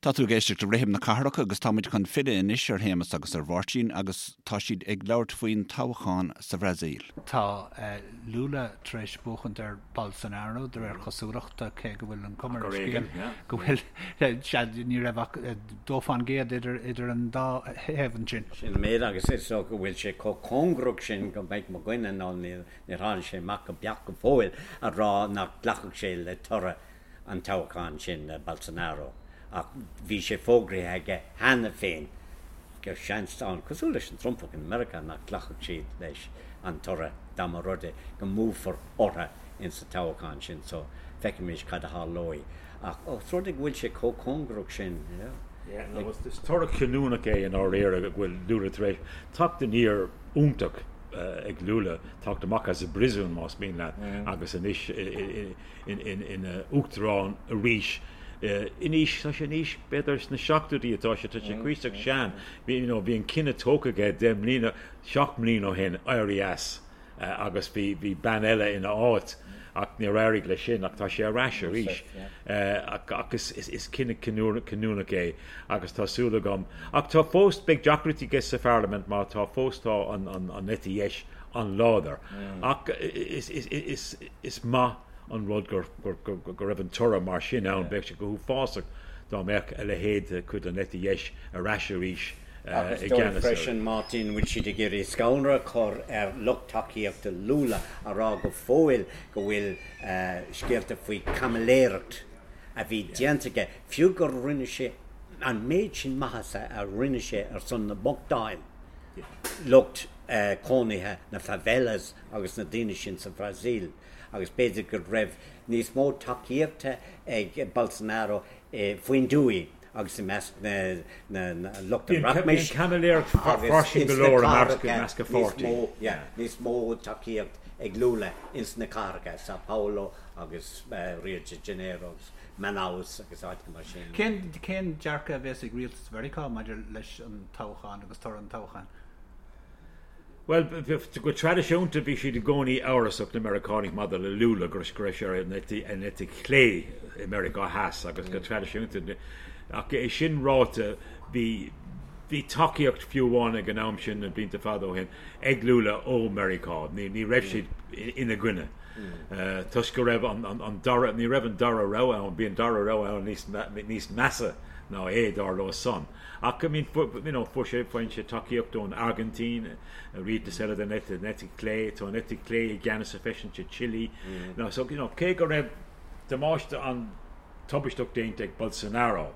Tá tú ag éisteacht le Rithim na Cathrach agus táimid chun filleadh anois ar Shéamus agus ar Mháirtín agus tá siad ag labhairt faoin toghchán sa Bhrasaíl. Tá Lula tar éis buachaint ar Bolsonaro de réir cosúlachta, cé go bhfuil an cuma ar an scéal go bhfuil, sea, ní raibh ach 2% idir idir an dá thaobh ansin. Sin an méid agus is dócha go bhfuil sé chomh cóngarach sin go mbeidh mo dhuine nó níor tháinig sé amach go beacht go fóill a rá nach nglacfadh sé le toradh an toghchán sin le Bolsonaro ach bhí sé fógraithe aige cheana féin go seans ann, cosúil leis an Trumpach in Meiriceá, nach nglacfadh siad leis an toradh dá mba rud é go mbuafar orthu ins an toghchán sin so feicfimis cad a tharlóidh ach os rud é go bhfuil sé chomh cóngarach sin, yeah. Yeah, no, is toradh cinniúnach é i ndáiríre go bhfuil Lula tar éis teacht aniar iontach ag Lula, teacht amach as an bpríosún más mian leat agus anois ina uachtarán arís in aois, tá sé in aois, b'fhéidir sna seachtóidí atá sé, tá sé cuíosach sean. Bhí, you know, bhí an cinneadh tógtha aige deich mbliana, seacht mbliana ó shin, éirí as agus bhí, bhí bean eile ina áit ach níor éirigh leis sin ach tá sé ar ais arís. Ach, ach is, is, is cinneadh cinniúnach é agus tá súil agam. Ach tá fós, beidh deacrachtaí aige sa pharlaimint mar tá fós tá an, an, an eite dheis an-láidir. Ach is, is, is, Is maith an rud go raibh an toradh mar sin ann. Bheadh sé go huafásach dá mbeadh a leithéid de chuid den eite dheis ar ais arís i gceannas ar. Freisin, Martin, bhfuil siad ag iarraidh scanradh a chur ar lucht tacaíochta Lula a rá go fóill go bhfuil scéalta faoi chaimiléireacht a bhí déanta aige, fiú gur rinne sé an méid sin maitheasa a rinne sé ar son na mbochtán, lucht cónaithe na favelas agus na daoine sin sa Bhrasaíl agus b'fhéidir go raibh níos mó tacaíochta ag Bolsonaro faoin dtuaith agus i measc na lucht an rachmais agus ins na cathracha níos mó, yeah, níos mó tacaíocht ag Lula ins na cathracha, Sao Paulo agus Rio de Janeiro agus Manaus agus áiteacha mar sin. Cén, cén dearcadh a bheas ag rialtas Mheiriceá maidir leis an toghchán agus toradh an toghcháin? Bhuel, go traidisiúnta bhí siad i gcónaí amhrasach, na Meiriceánaigh, maidir le Lula, go raibh sé ar an eite chlé i Meiriceá Theas agus go traidisiúnta, ach é sin ráite, bhí bhí tacaíocht fiú amháin ag an am sin, na blianta fada ó shin, ag Lula ó Meiriceá. Ní raibh siad ina gcoinne toisc go raibh an dara, ní raibh an dara rogha ann, bhí an dara rogha ann níos measa ná é, dar leo san. Ach I mean, you know, fuair sé, faigheann sé tacaíocht ón Airgintín, rialtas eile den eite, den eite chlé, tá an eite chlé i gceannas freisin sa Chile. Now, so, you know, cé go raibh damáiste an-tubaisteach déanta ag Bolsonaro,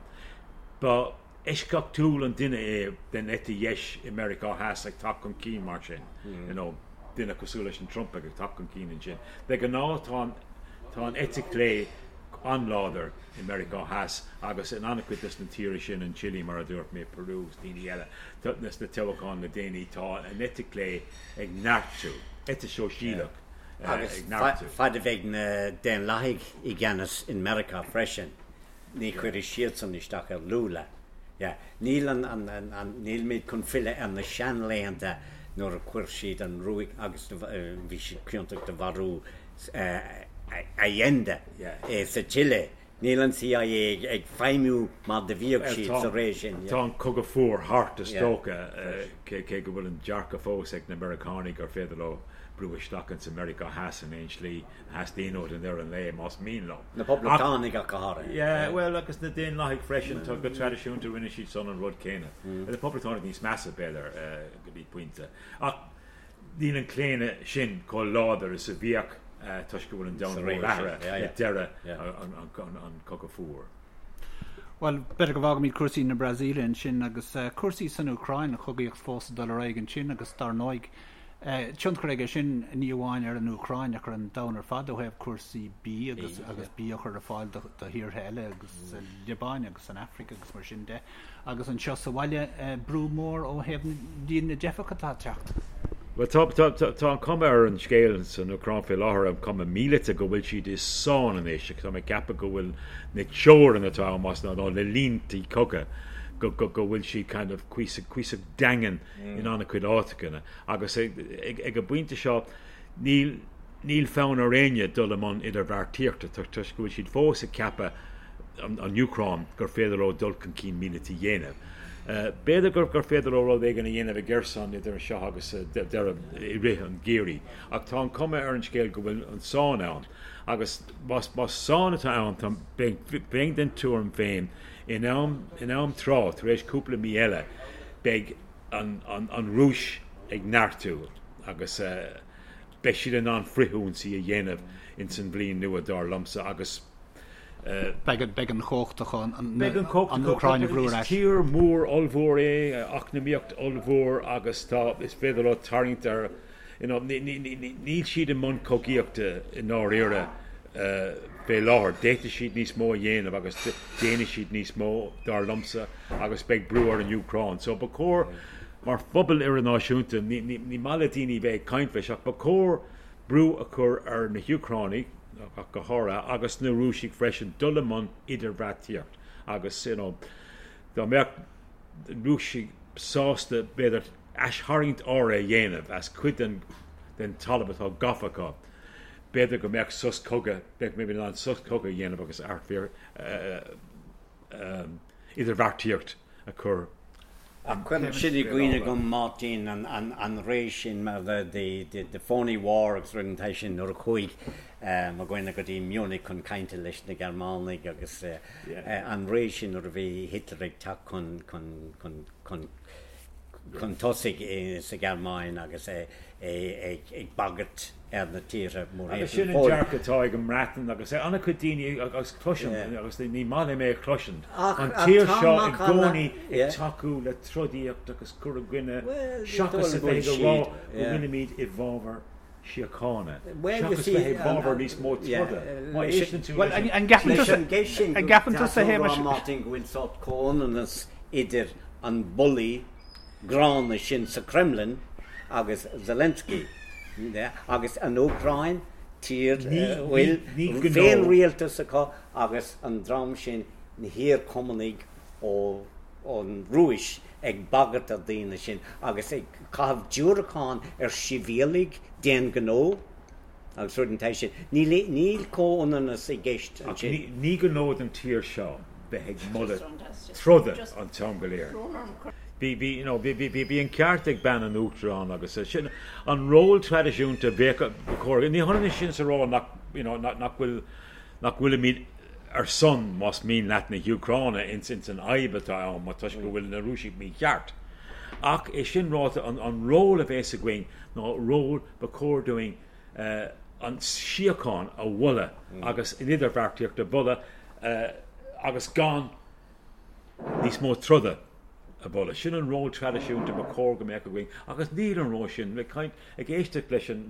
ba eisceachtúil an duine é den eite dheis i Meiriceá Theas ag teacht chun cinn mar sin, you know, duine cosúil leis an Trump ag teacht chun cinn ansin. De ghnáth tá an, tá an eite chlé an-láidir i Meiriceá Theas agus in an-chuid des na tíortha sin, an Chile mar a dúirt mé, Peru agus daoine eile, sna toghcháin le déanaí, tá an eite chlé ag neartú, eite shóisialach ag neartú. Agus fad a bheidh na Daonlathaigh i gceannas in Meiriceá freisin, ní chuirfidh siadsan isteach ar Lula. Yeah. Níl an, an, an, an, nílimid chun filleadh ar na seanlaethanta nuair a chuir siad an ruaig agus bhí siad ciontach de mharú Allende sa tSile. Níl an CIA ag feidhmiú mar do bhíodh siad sa ré sin. Tá an cogadh fuar thart is dócha, cé go bhfuil an dearcadh fós ag na Meiriceánaigh gur féidir leo brú isteach ins an Meiriceá Theas in aon slí a theastaíonn uathu i ndeireadh an lae, más mian leo. Na Poblachtánaigh ach go háirithe. Yeah, bhuel, agus na Daonlathaigh freisin, tá go traidisiúnta rinne siad san an rud céanna. Na Poblachtánaigh níos measa, b'fhéidir, go dtí pointe. Ach Níl an claonadh sin chomh láidir is a bhíodh toisc go bhfuil an domhan mór athraithe le deireadh an Chogadh Fuar. Bhuel, b'fhéidir go bhfágfaimid cúrsaí na Brasaíle ansin agus cúrsaí san Úcráin, an chogaíocht fós ag dul ar aghaidh ansin agus dar ndóigh, tionchar aige sin ní amháin ar an Úcráin ach ar an domhan ar fad ó thaobh cúrsaí bídh agus agus bia a chur ar fáil do thíortha eile agus sa Liobáin agus san Afraic agus mar sin de. Agus anseo sa bhaile, brú mór ó thaobh líon na dteifeach atá ag teacht. Bhuel, tá, tá, tá, tá an chuma ar an scéal san Úcráin faoi láthair, an chuma mhíleata, go bhfuil siad i sáinn anois. Tá mé ag ceapadh go bhfuil na teorainn atá ann, más ná, na línte cogaidh, go, go, go bhfuil siad kind of cuíosach, cuíosach daingean in an-chuid áiteanna. Agus ag, ag, ag an bpointe seo, níl, níl fonn ar éinne dul i mbun idirbheartaíochta toisc go bhfuil siad fós ag ceapadh. an Úcráin gur féidir leo dul chun cinn míleata a dhéanamh. B'fhéidir gur féidir leo rud éigin a dhéanamh i gCerson idir seo agus deireadh i rith an gheimhridh, ach tá an chuma ar an scéal go bhfuil an sáinn ann agus más sáinn atá ann, bheinn den tuairim féin in am in am tráth, tar éis cúpla mí eile, beidh an Rúis ag neartú agus beidh siad in ann frithionsaí a dhéanamh ins an bhliain nua, dar liomsa, agus. Beidh an chumhacht acu an Úcráin a bhrú ar ais. Is tír mhór ollmhór é, eacnamaíocht ollmhór agus tá, is féidir leo tarraingt ar, you know, níl siad i mbun cogaíochta i ndáiríre fé láthair. D'fhéadfadh siad níos mó a dhéanamh agus déanfaidh siad níos mó, dar liomsa, agus beidh brú ar an Úcráin. So ba chóir, mar phobal idirnáisiúnta, ní maith le daoine bheith ag caint leis ach ba chóir brú a chur ar na hÚcránaigh, ach go háirithe, agus na Rúisigh freisin, dul i mbun idirbheartaíocht agus, you know, dá mbeadh na Rúisigh sásta, b'fhéidir, aistharraingt áirithe a dhéanamh as cuid den den talamh atá gafa acu, b'fhéidir go mbeadh sos cogaidh, bheadh maybe in ann sos cogaidh a dhéanamh agus idirbheartaíocht a chur Ach cuireann sin i gcuimhne dom, Máirtín, an ré sin mar the phony war agus rud den tsaghas sin nuair a chuaigh mo dhuine go dtí Munich chun cainte leis na Gearmánaigh agus an ré sin nuair a bhí Hitler ag teacht chun chun chun chun tosaigh sa Ghearmáin agus é ag bagairt ar na tíortha Agus sin an dearcadh atá ag an mBreatain agus ag an-chuid daoine agus cloisim, agus ní maith liom é a chloisint, an tír seo i gcónaí ag tacú le trodaíocht agus cur i gcoinne seachas a bheith ag rá go bhfuilimid i bhfabhar síochána, seachas bheith i bhfabhar níos mó troda. Má éisteann tú leis an. Leis an gceist sin, tá tú ag rá, Martin, go bhfuil sórt comhionannas idir an bulaí gránna sin sa Kremlin agus Zelensky agus an Úcráin, tír a bhfuil féinrialtas acu agus an dream sin, na hiar-Chumannaigh ón Rúis ag bagairt ar daoine sin agus ag caitheamh diúracán ar shibhialaigh d'aon ghnó agus rud den tsaghas sin. Níl comhionannas i gceist ansin. Ach ní gnó don tír seo bheith ag moladh troda an t-am go léir. Bhí, bhí, you know, bhí, bhí, bhí an ceart ag bean an Uachtaráin agus sin an ról traidisiúnta bheadh, ba chóir, ní hionann sin is a rá nach, you know, nach, nach bhfuil, nach bhfuilimid ar son, más mian leat, na hÚcráine ins, ins an fhadhb atá ann, mar toisc go bhfuil na Rúisigh mícheart. Ach é sin ráite, an, an ról a bheas againn ná ról ba chóir dúinn an síocháin a mholadh agus an idirbheartaíocht a mholadh agus gan níos mó troda a mholadh. Sin an ról traidisiúnta ba chóir go mbeadh againn agus níl an ról sin. Ag caint, ag éisteacht leis an,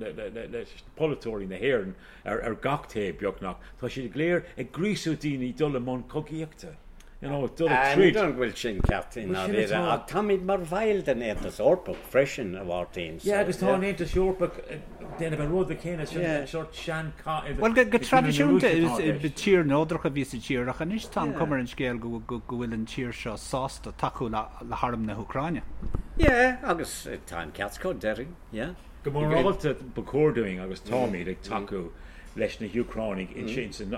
leis polaiteoirí na hÉireann ar gach taobh beagnach, tá siad go léir ag gríosú daoine dul i mbun cogaíochta. You know, dul ag troid. Ní dóigh go bhfuil sin ceart i ndáiríre, ach táimid mar bhaill den Aontas Eorpach freisin, a Mháirtín, so. Yeah, agus tá an Aontas Eorpach ag déanamh an rud céanna, sin an sórt sean-chath idir. Bhuel, go traidisiúnta is tír neodrach a bhí sa tír, ach anois tá an chuma ar an scéal go bhfuil an tír seo sásta tacú le harm na hÚcráine. Yeah, agus tá an ceart acu, déarfainn, yeah. Go morálta ba chóir dúinn, agus táimid, ag tacú leis na hÚcránaigh ins an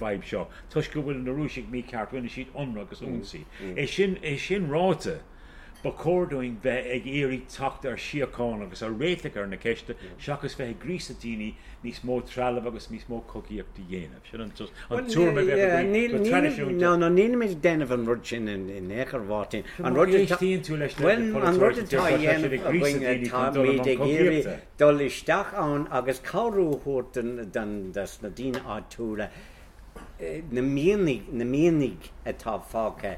bhfadhb seo. Toisc go bhfuil na Rúisigh mícheart, rinne siad ionradh agus ionsaí. É sin, é sin ráite, ba chóir dúinn bheith ag iarraidh teacht ar shíocháin agus ar réiteach ar na ceiste seachas bheith ag gríosadh daoine níos mó trealamh agus níos mó cogaíocht a dhéanamh. Sin an tuairim a bheadh againn go traidisiúnta. No, no, nílimid ag déanamh an rud sin in aon chor, a Mháirtín. An rud atá, éistíonn tú leis na polaiteoirí, an rud atá á dhéanamh againn, táimid ag iarraidh dul isteach ann agus cabhrú a thabhairt don, dos na daoine áitiúla na mianaigh, na mianaigh atá fágtha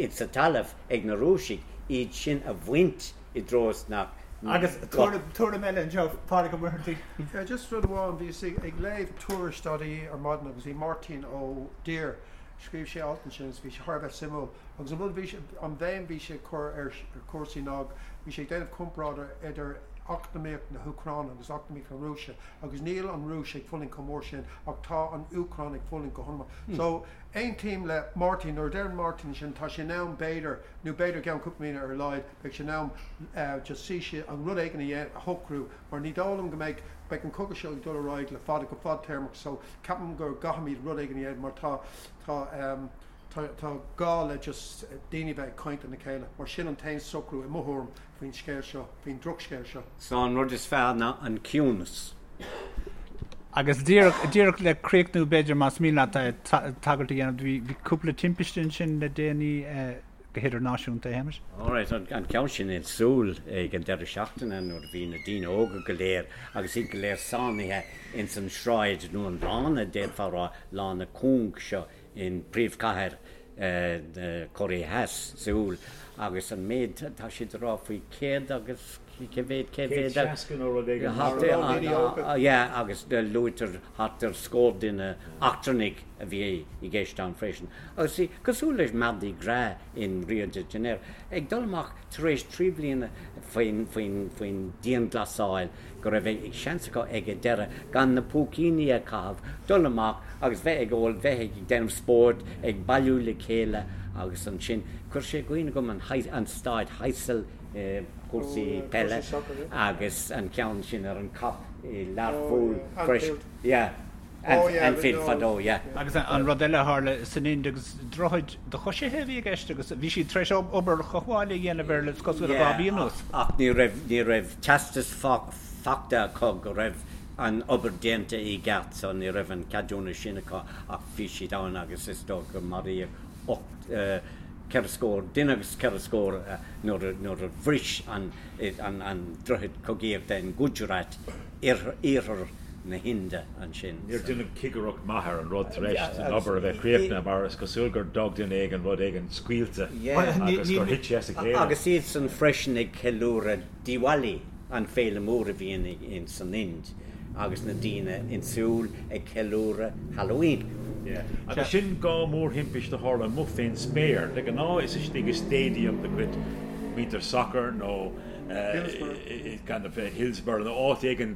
sa talamh ag na Rúisigh, iad sin a bhaint i dtreo is nach Agus tuairim eile anseo, Pádraig Ó Muircheartaigh. Yeah, just rud amháin, bhíos ag léamh tuairisc.ie ar maidin agus bhí Máirtín Ó Duibhir, scríobh sé alt ansin agus bhí sé thar a bheith suimiúil agus an rud a bhí sé, an bhéim bhí sé ag cur ar chúrsaí ná bhí sé ag déanamh comparáide idir. eacnamaíocht na hÚcráine agus eacnamaíocht na Rúise agus níl an Rúis ag fulaingt chomh mór sin ach tá an Úcráin ag fulaingt go han-mhór. So, aontaím le Máirtín, nuair a deireann Máirtín sin, tá sé in am b'fhéidir, nó b'fhéidir i gceann cúpla míonna ar a laghad, beidh sé in am just suí an rud éigin a a shocrú mar ní dóigh liom go mbeidh, beidh an cogadh seo ag dul ar aghaidh le fada, go fadtéarmach so ceapaim go gcaithfimid rud éigin a dhéanamh mar tá, tá ehm, tá, tá gá le just daoine bheith ag caint lena chéile mar sin an t-aon socrú i mo thuairim faoin scéal seo, faoin drochscéal seo. So an rud is fearr ná an ciúnas. Agus díreach, díreach le críochnú b'fhéidir más mian leat tagairt a dhéanamh, bhí, bhí cúpla timpiste ansin le déanaí go hidirnáisiúnta, a Shéamais? Alright, an ceann sin in Seoul ag an deireadh seachtaine nuair a bhí na daoine óga go léir agus iad go léir sáinnithe ins an sráid nó an lána, d'fhéadfá a rá, lána cúng seo in príomhchathair na Cóiré Theas, Seoul, agus an méid tá siad ag rá faoi 100 agus cé mhéad, cé mhéad a. 160 nó rud éigin thart ar. Yeah, agus luaitear thart ar scór duine eachtrannaigh a bhí i gceist ann freisin. Agus bhí, cosúil leis Mardi Gras in Rio de Janeiro, ag dul amach tar éis 3 bliana faoin, faoin, faoin dianghlasáil, go raibh seans acu ag an deireadh gan na púicíní a chaitheamh, dul amach agus bheith ag ól, bheith ag déanamh spóirt, ag bailiú le chéile agus ansin chuir sé i gcuimhne dhom an staid Heysel i gcúrsaí peile agus an ceann sin ar an Kop i Learpholl freisin. Yeah. Anfield fadó, yeah. Agus an rud eile a tharla san Ind agus droichead do choisithe a bhí i gceist agus bhí siad tar éis obair chothabhála a dhéanamh air le cosúil le 2 mhí anuas. Ach ní raibh, ní raibh teastas fachta acu go raibh an obair déanta i gceart so ní raibh an ceadúnas sin acu ach bhí siad ann agus is dócha gur maraíodh 8, 4 scór, duine agus 4 scór nuair nuair a bhris an an droichead cogaíochta in Gujarat. iarthar na hInde ansin. Níor deineadh cigireacht maith ar an rud tar éis an obair a bheith críochnaithe mar is cosúil gur d'fhág duine éigin rud éigin scaoilte agus gur thit sé as a chéile. Agus iadsan freisin ag ceiliúradh Diwali, an féile mór a bhíonn in san Ind, agus na daoine in Seoul ag ceiliúradh Halloween. Agus sin 2 mhórthimpist a tharla amuigh fén spéir. De ghnáth is istigh i stadium de chuid muintir sacair nó kind of Hillsborough nó áit éigin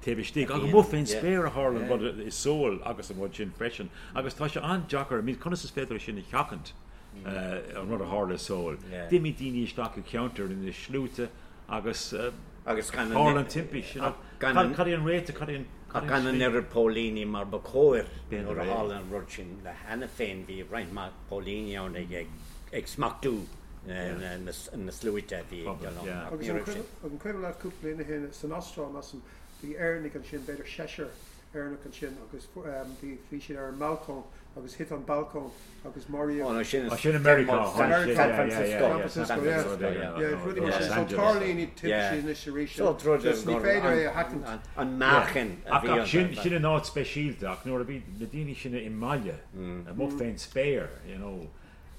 taobh istigh. Ach amuigh fén spéir a tharla an rud i Seoul agus an rud sin freisin. Agus tá sé an-deacair, I mean conas is féidir é sin a sheachaint, an rud a tharla i Seoul. D'imigh daoine isteach i gceantar ina sluaite agus tharla an timpist. Cad é an réiteach, cad é an Ach gan an oiread póilíní mar ba chóir nuair a tharla an rud sin cheana féin, bhí roinnt mhaith póilíní ann ag smachtú na sluaite a bhí ag dul ann. Ach ní raibh sin. Agus an cuimhin leat cúpla bliain ó shin san Astráil, measaim, bhí Éireannaigh ansin, b'fhéidir seisear Éireannach ansin agus bhí siad ar an mbalcóin agus thit an balcóin agus maraíodh. Ó, sin sin i Meiriceá. San Francisco. San Francisco, yeah. Yeah, rudaí mar sin. So tarlaíonn iad timpistí anois arís. Just ní féidir é a sheachaint. An meáchan a bhí iontu. Sin in áit speisialta ach nuair a bhí na daoine sin i mbaile, amuigh fén spéir, you know,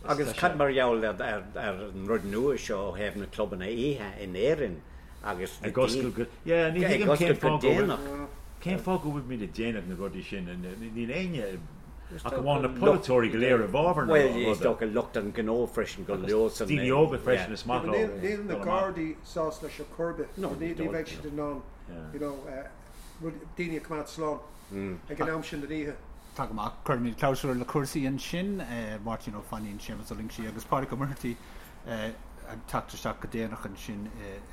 Agus cad mar gheall ar an rud nua seo ó thaobh na clubanna oíche in Éirinn agus na Ag oscailt go, yeah, ní thuigim cén fáth go bhfuil, cén fáth go bhfuilimid ag déanamh na rudaí sin, níl éinne ach amháin na polaiteoirí go léir i bhfabhar na ruda. Bhuel, is dócha lucht an ghnó freisin go leor san. Daoine óga freisin is maith leo. Níl na Gardaí sásta leis ar chor ar bith, ní bheidh siad in ann, you know, daoine a choimeád slán ag an am sin den oíche. Tá go maith. Cuirfimid clabhsúr le cúrsaí ansin. Máirtín Ó Fainín, Séamus Ó Loingsigh agus Pádraig Ó Muircheartaigh ag teacht isteach go déanach ansin.